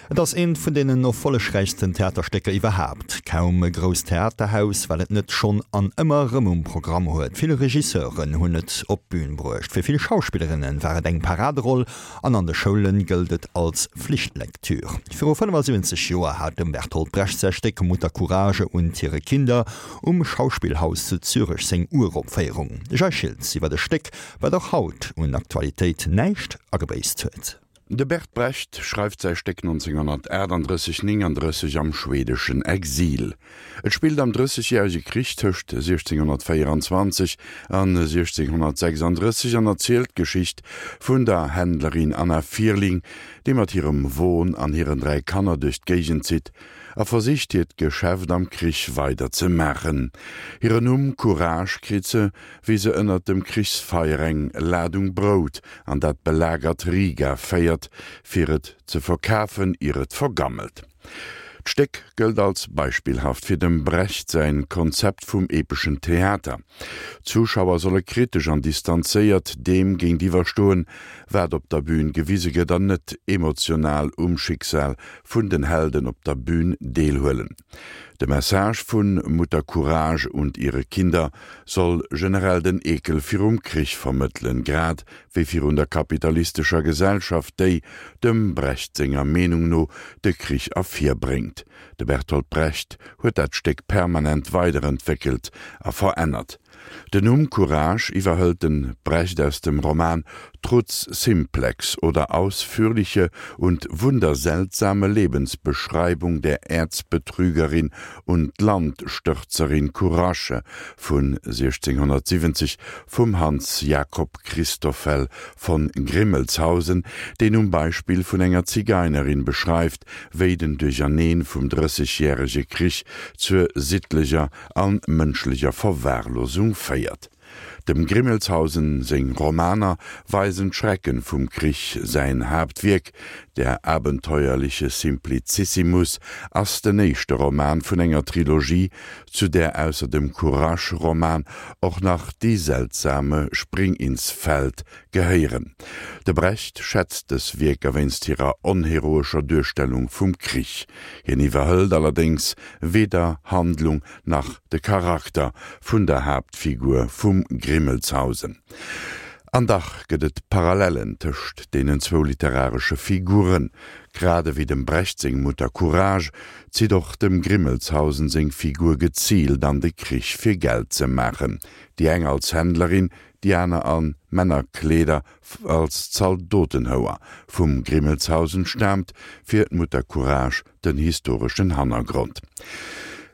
Et ass eent vun deenen erfollegräichsten Theaterstécker iwwerhaapt. Kaum e grousst Theaterhaus, wat et net schonn an ëmmer erëm um Programm huet. Vill Regisseuren hunn et op d'Bün bruecht. Fir vill Schauspillerinne war et eng Paraderoll an an de Schoule gëllt et als Flichtlektür. Viru 75 Joer hat dem Bertolt Brecht säi Stéck Mutter Courage und ihre Kinder um Schauspielhaus zu Zürech seng Uropféierung. De Jay Schiltz iwwer e Stéck, wat och haut un Aktualitéit näischt agebéisst huet. De Bert Brecht schreift säi Stéck 1938, 39 am schweedeschen Exil. Et spillt am Drëssegjärege Krich tëscht 1624 an 1636 an erzielt d'Geschicht vun der Händlerin Anna Fierling, déi mat hirem Won an hiren 3 Kanner duerch d'Géigend zitt a versicht hiert Geschäft am Krich weider ze maachen. Hiren Numm Courage kritt se, wéi se ënnert dem Krichsfeier eng Ladung Brout an dat belagert Riga féiert, fir et ze verkafen, ier et vergammelt. D'Stéck gëllt als beispillhaft fir dem Brecht säin Konzept vum epeschen Theater. D'Zuschauer solle kritesch an distanzéiert deem géintiwwer stoen, wat op der Bün gewise gëtt an net emotional um Schicksal vun den Helden op der Bün deelhuelen. De Message vun Mutter Courage und ihre Kinder soll generell den Ekel virum Krich vermëttelen, grad wéi virun der kapitalistescher Gesellschaft, déi, dem Brecht senger Meenung no, de Krich ervirbréngt. De Bertolt Brecht huet dat Stéck permanent weiderentwéckelt a verännert. Den Numm Courage iwwerhëlt de Brecht aus dem Roman Trutz simplex oder ausführliche und wunderseltsame Lebensbeschreibung der Erzbetrügerin und Landstürzerin Courage vun 1670 vum Hans Jakob Christoffel von Grimmelshausen, deen um Beispill vun enger Zigeinerin beschreift, wéi den Duercherneen vum Drëssegjärege Krich zur sittlecher an mënschlecher Verwahrlosung féiert. Dem Grimmelshausen seng Romaner weisen d'Schrecken vum Krich, säin Haaptwierk Der abenteuerliche Simplicissimus ass den éischte Roman vun enger Trilogie, zu där ausser dem Courage-Roman och nach Die seltsame Springinsfeld gehéieren. De Brecht schätzt dës Wierker wéinst hirer onheroescher Duerstellung vum Krich. Hien iwwerhëlt allerdéngs weder Handlung nach de Charakter vun der Haaptfigur vum Grimmelshausen. An dach gëtt et Parallellen tëscht deenen zwou literaresche Figuren. Grad ewéi dem Brecht seng Mutter Courage zitt och dem Grimmelshausen seng Figur geziilt an de Krich fir Geld ze maachen, déi eng als Händlerin, déi aner a Männerkleeder als Zaldotenhouer. Vum Grimmelshausen staamt fir d'Mutter Courage den historeschen Hannergrond.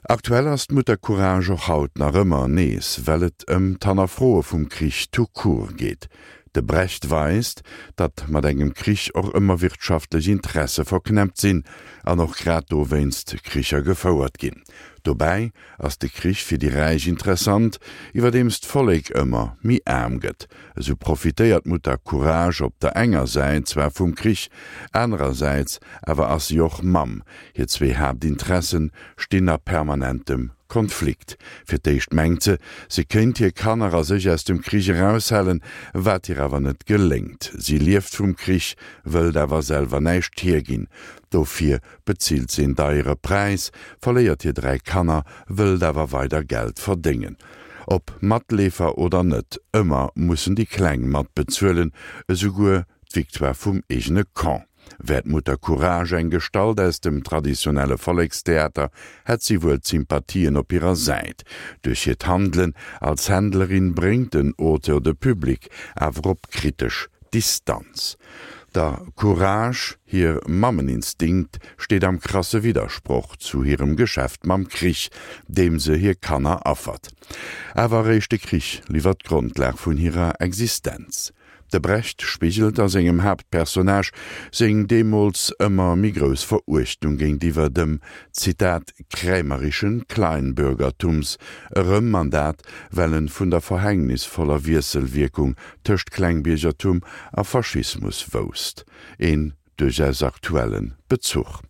Aktuell ass d'Mutter Courage och haut nach ëmmer nees, well et ëm d'Hannerfroe vum Krich tout court geet. De Brecht weist, datt mat engem Krich och ëmmer wirtschaftlech Interesse verknäppt sinn an och grad dowéinst Kricher gefouert ginn. Dobäi ass de Krich fir déi Räich interessant, iwwerdeems d'Vollek ëmmer méi aarm gëtt. Esou profitéiert d'Mutter Courage op der enger Säit zwar vum Krich, anerersäits awer ass si och Mamm. Hir zwee Haaptinteressen stinn a permanentem Konflikt. Fir d'éischt mengt se, se kéint hir Kanner a sech aus dem Krich eraushalen, wat hir awer net geléngt. Si lieft vum Krich, wëllt awer selwer näischt hierginn. Dofir bezilt se een deiere Präis, verléiert hir 3 Kanner, wëllt awer weider Geld verdéngen. Ob Matleefer oder net, ëmmer mussen déi Kleng mat bezuelen, esouguer d'Victoire vum eegene Camp. Wär d'Mutter Courage eng Gestalt aus dem traditionelle Vollekstheater, hätt si wuel d'Sympathien op hirer Säit. Duerch hiert Handelen als Händlerin bréngt den Auteur de Public awer op kritesch Distanz. Der Courage hir Mammeninstinkt steet am krasse Widdersproch zu hirem Geschäft mam Krich, deem se hir Kanner affert. Awer eréischt de Krich liwwert d'Grondlag vun hirer Existenz. De Brecht spigelt a sengem Haaptpersonnage seng deemools ëmmer méi grouss Veruechtung géintiwwer dem, Zitat, krämerischen Kleinbürgertums erëm, an dat, well en vun der verhängnisvoller Wiesselwierkung tëscht Klengbiergertum a Faschismus wousst. Een duerchaus aktuelle Bezuch.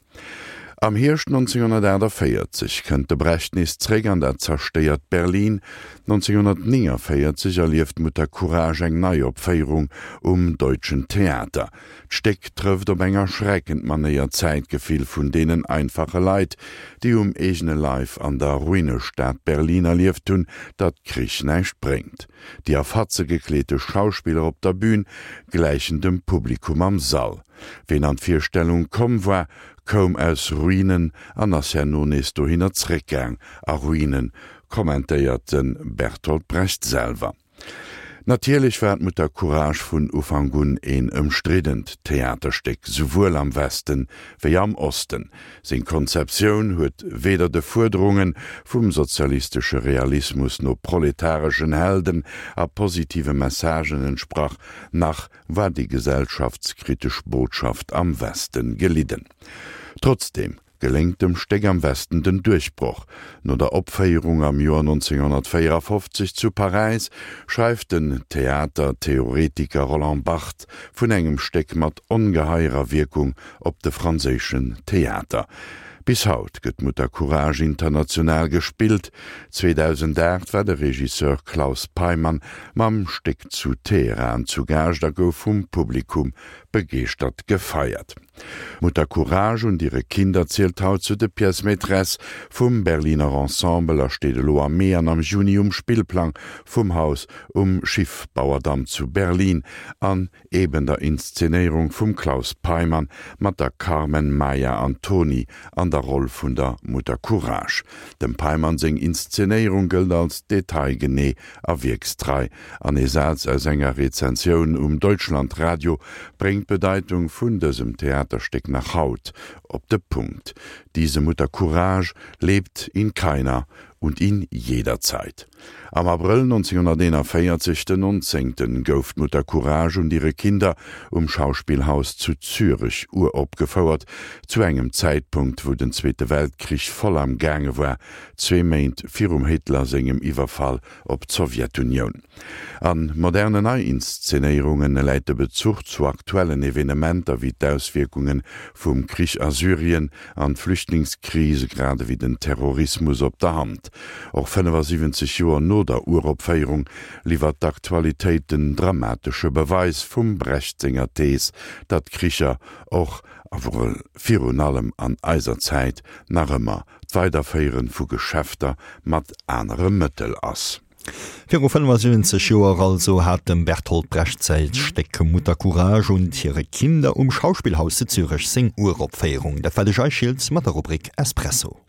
Am Hierscht 1948 kënnt de Brecht nees zréck an dat zerstéiert Berlin. 1949 erlieft Mutter Courage eng Neiopféierung um Deutschen Theater. D'Stéck trëfft op eng erschreckend Manéier d'Zäitgefill vun deenen einfache Leit, déi um eegene Leif an der Ruinestad Berlin erlieft hunn, datt Krich näischt bréngt. Déi a Fatze gekleete Schauspiller op der Bün gläichen dem Publikum am Sall. Ween an d'Virstellung komm war, koum aus Ruinen an ass herno nees dohinner zréckgaang, a Ruinen, kommentéiert de Bertolt Brecht selwer. Natierlech war d'Mutter Courage vun Ufank un een ëmstriddent Theaterstéck, souwuel am Westen wéi am Osten. Seng Konzeptioun huet weder de Fuerderunge vum sozialistesche Realismus no proletareschen Helden a positive Messagen entsprach, nach war déi gesellschaftskritesch Botschaft am Westen gelidden. Trotzdeem geléngt dem Stéck am Westen den Duerchbroch. No der Opféierung am Joer 1954 zu Paräis schreift den Theatertheoretiker Roland Barthes vun engem Stéck mat ongeheierer Wierkung op de franséischen Theater. Bis haut gëtt Mutter Courage international gespillt. 2008 war de Regisseur Claus Peymann mam Stéck zu Teheran zu Gaascht a gouf vum Publikum begeeschtert gefeiert. Mutter Courage und ihre Kinder zielt haut zu de Pièces maîtresses vum Berliner Ensemble a steet elo am Mee an am Juni um Spillplang vum Haus um Schiffbauerdamm zu Berlin an eben der Inszenéierung vum Claus Peymann mat der Carmen Maia Antoni an der Roll vun der Mutter Courage. Dem Peymann seng Inszenéierung gëllt als detailgenee a wierkstrei, an ee Saz aus enger Rezensioun um Deutschlandradio bréngt d'Bedeitung vun dësem Theaterstéck nach haut op de Punkt, Diese Mutter Courage lebt in keiner und in jeder Zeit. Am Abrëll 1941, den 19. Gouf d'Mutter Courage und ihre Kinder um Schauspielhaus zu Zürech uropgefouert, zu engem Zäitpunkt, wou den Zweete Weltkrich voll am gaange war, zwee Méint virum Hitler sengem Iwwerfall op d'Sowjetunioun. A moderne Neiinszenéierunge läit de Bezuch zu aktuellen Evenementer wéi d'Auswierkunge vum Krich a Syrien an d'Flüchtlingskrise grad ewéi den Terrorismus op der Hand. Och 75 Joer no der Uropféierung liwwert d'Aktualitéit den dramatesche Beweis vum Brecht senger Thees, datt Kricher och a virun allem an eiser Zäit nach ëmmer d'Weiderféiere vu Geschäfter mat anere Mëttel ass. Viru 75 Joer also hat dem Bertolt Brecht säi Stéck Mutter Courage und ihre Kinder um Schauspielhaus zu Zürech seng Uropféierung. Dat war de Jay Schiltz mat der Rubrik Espresso.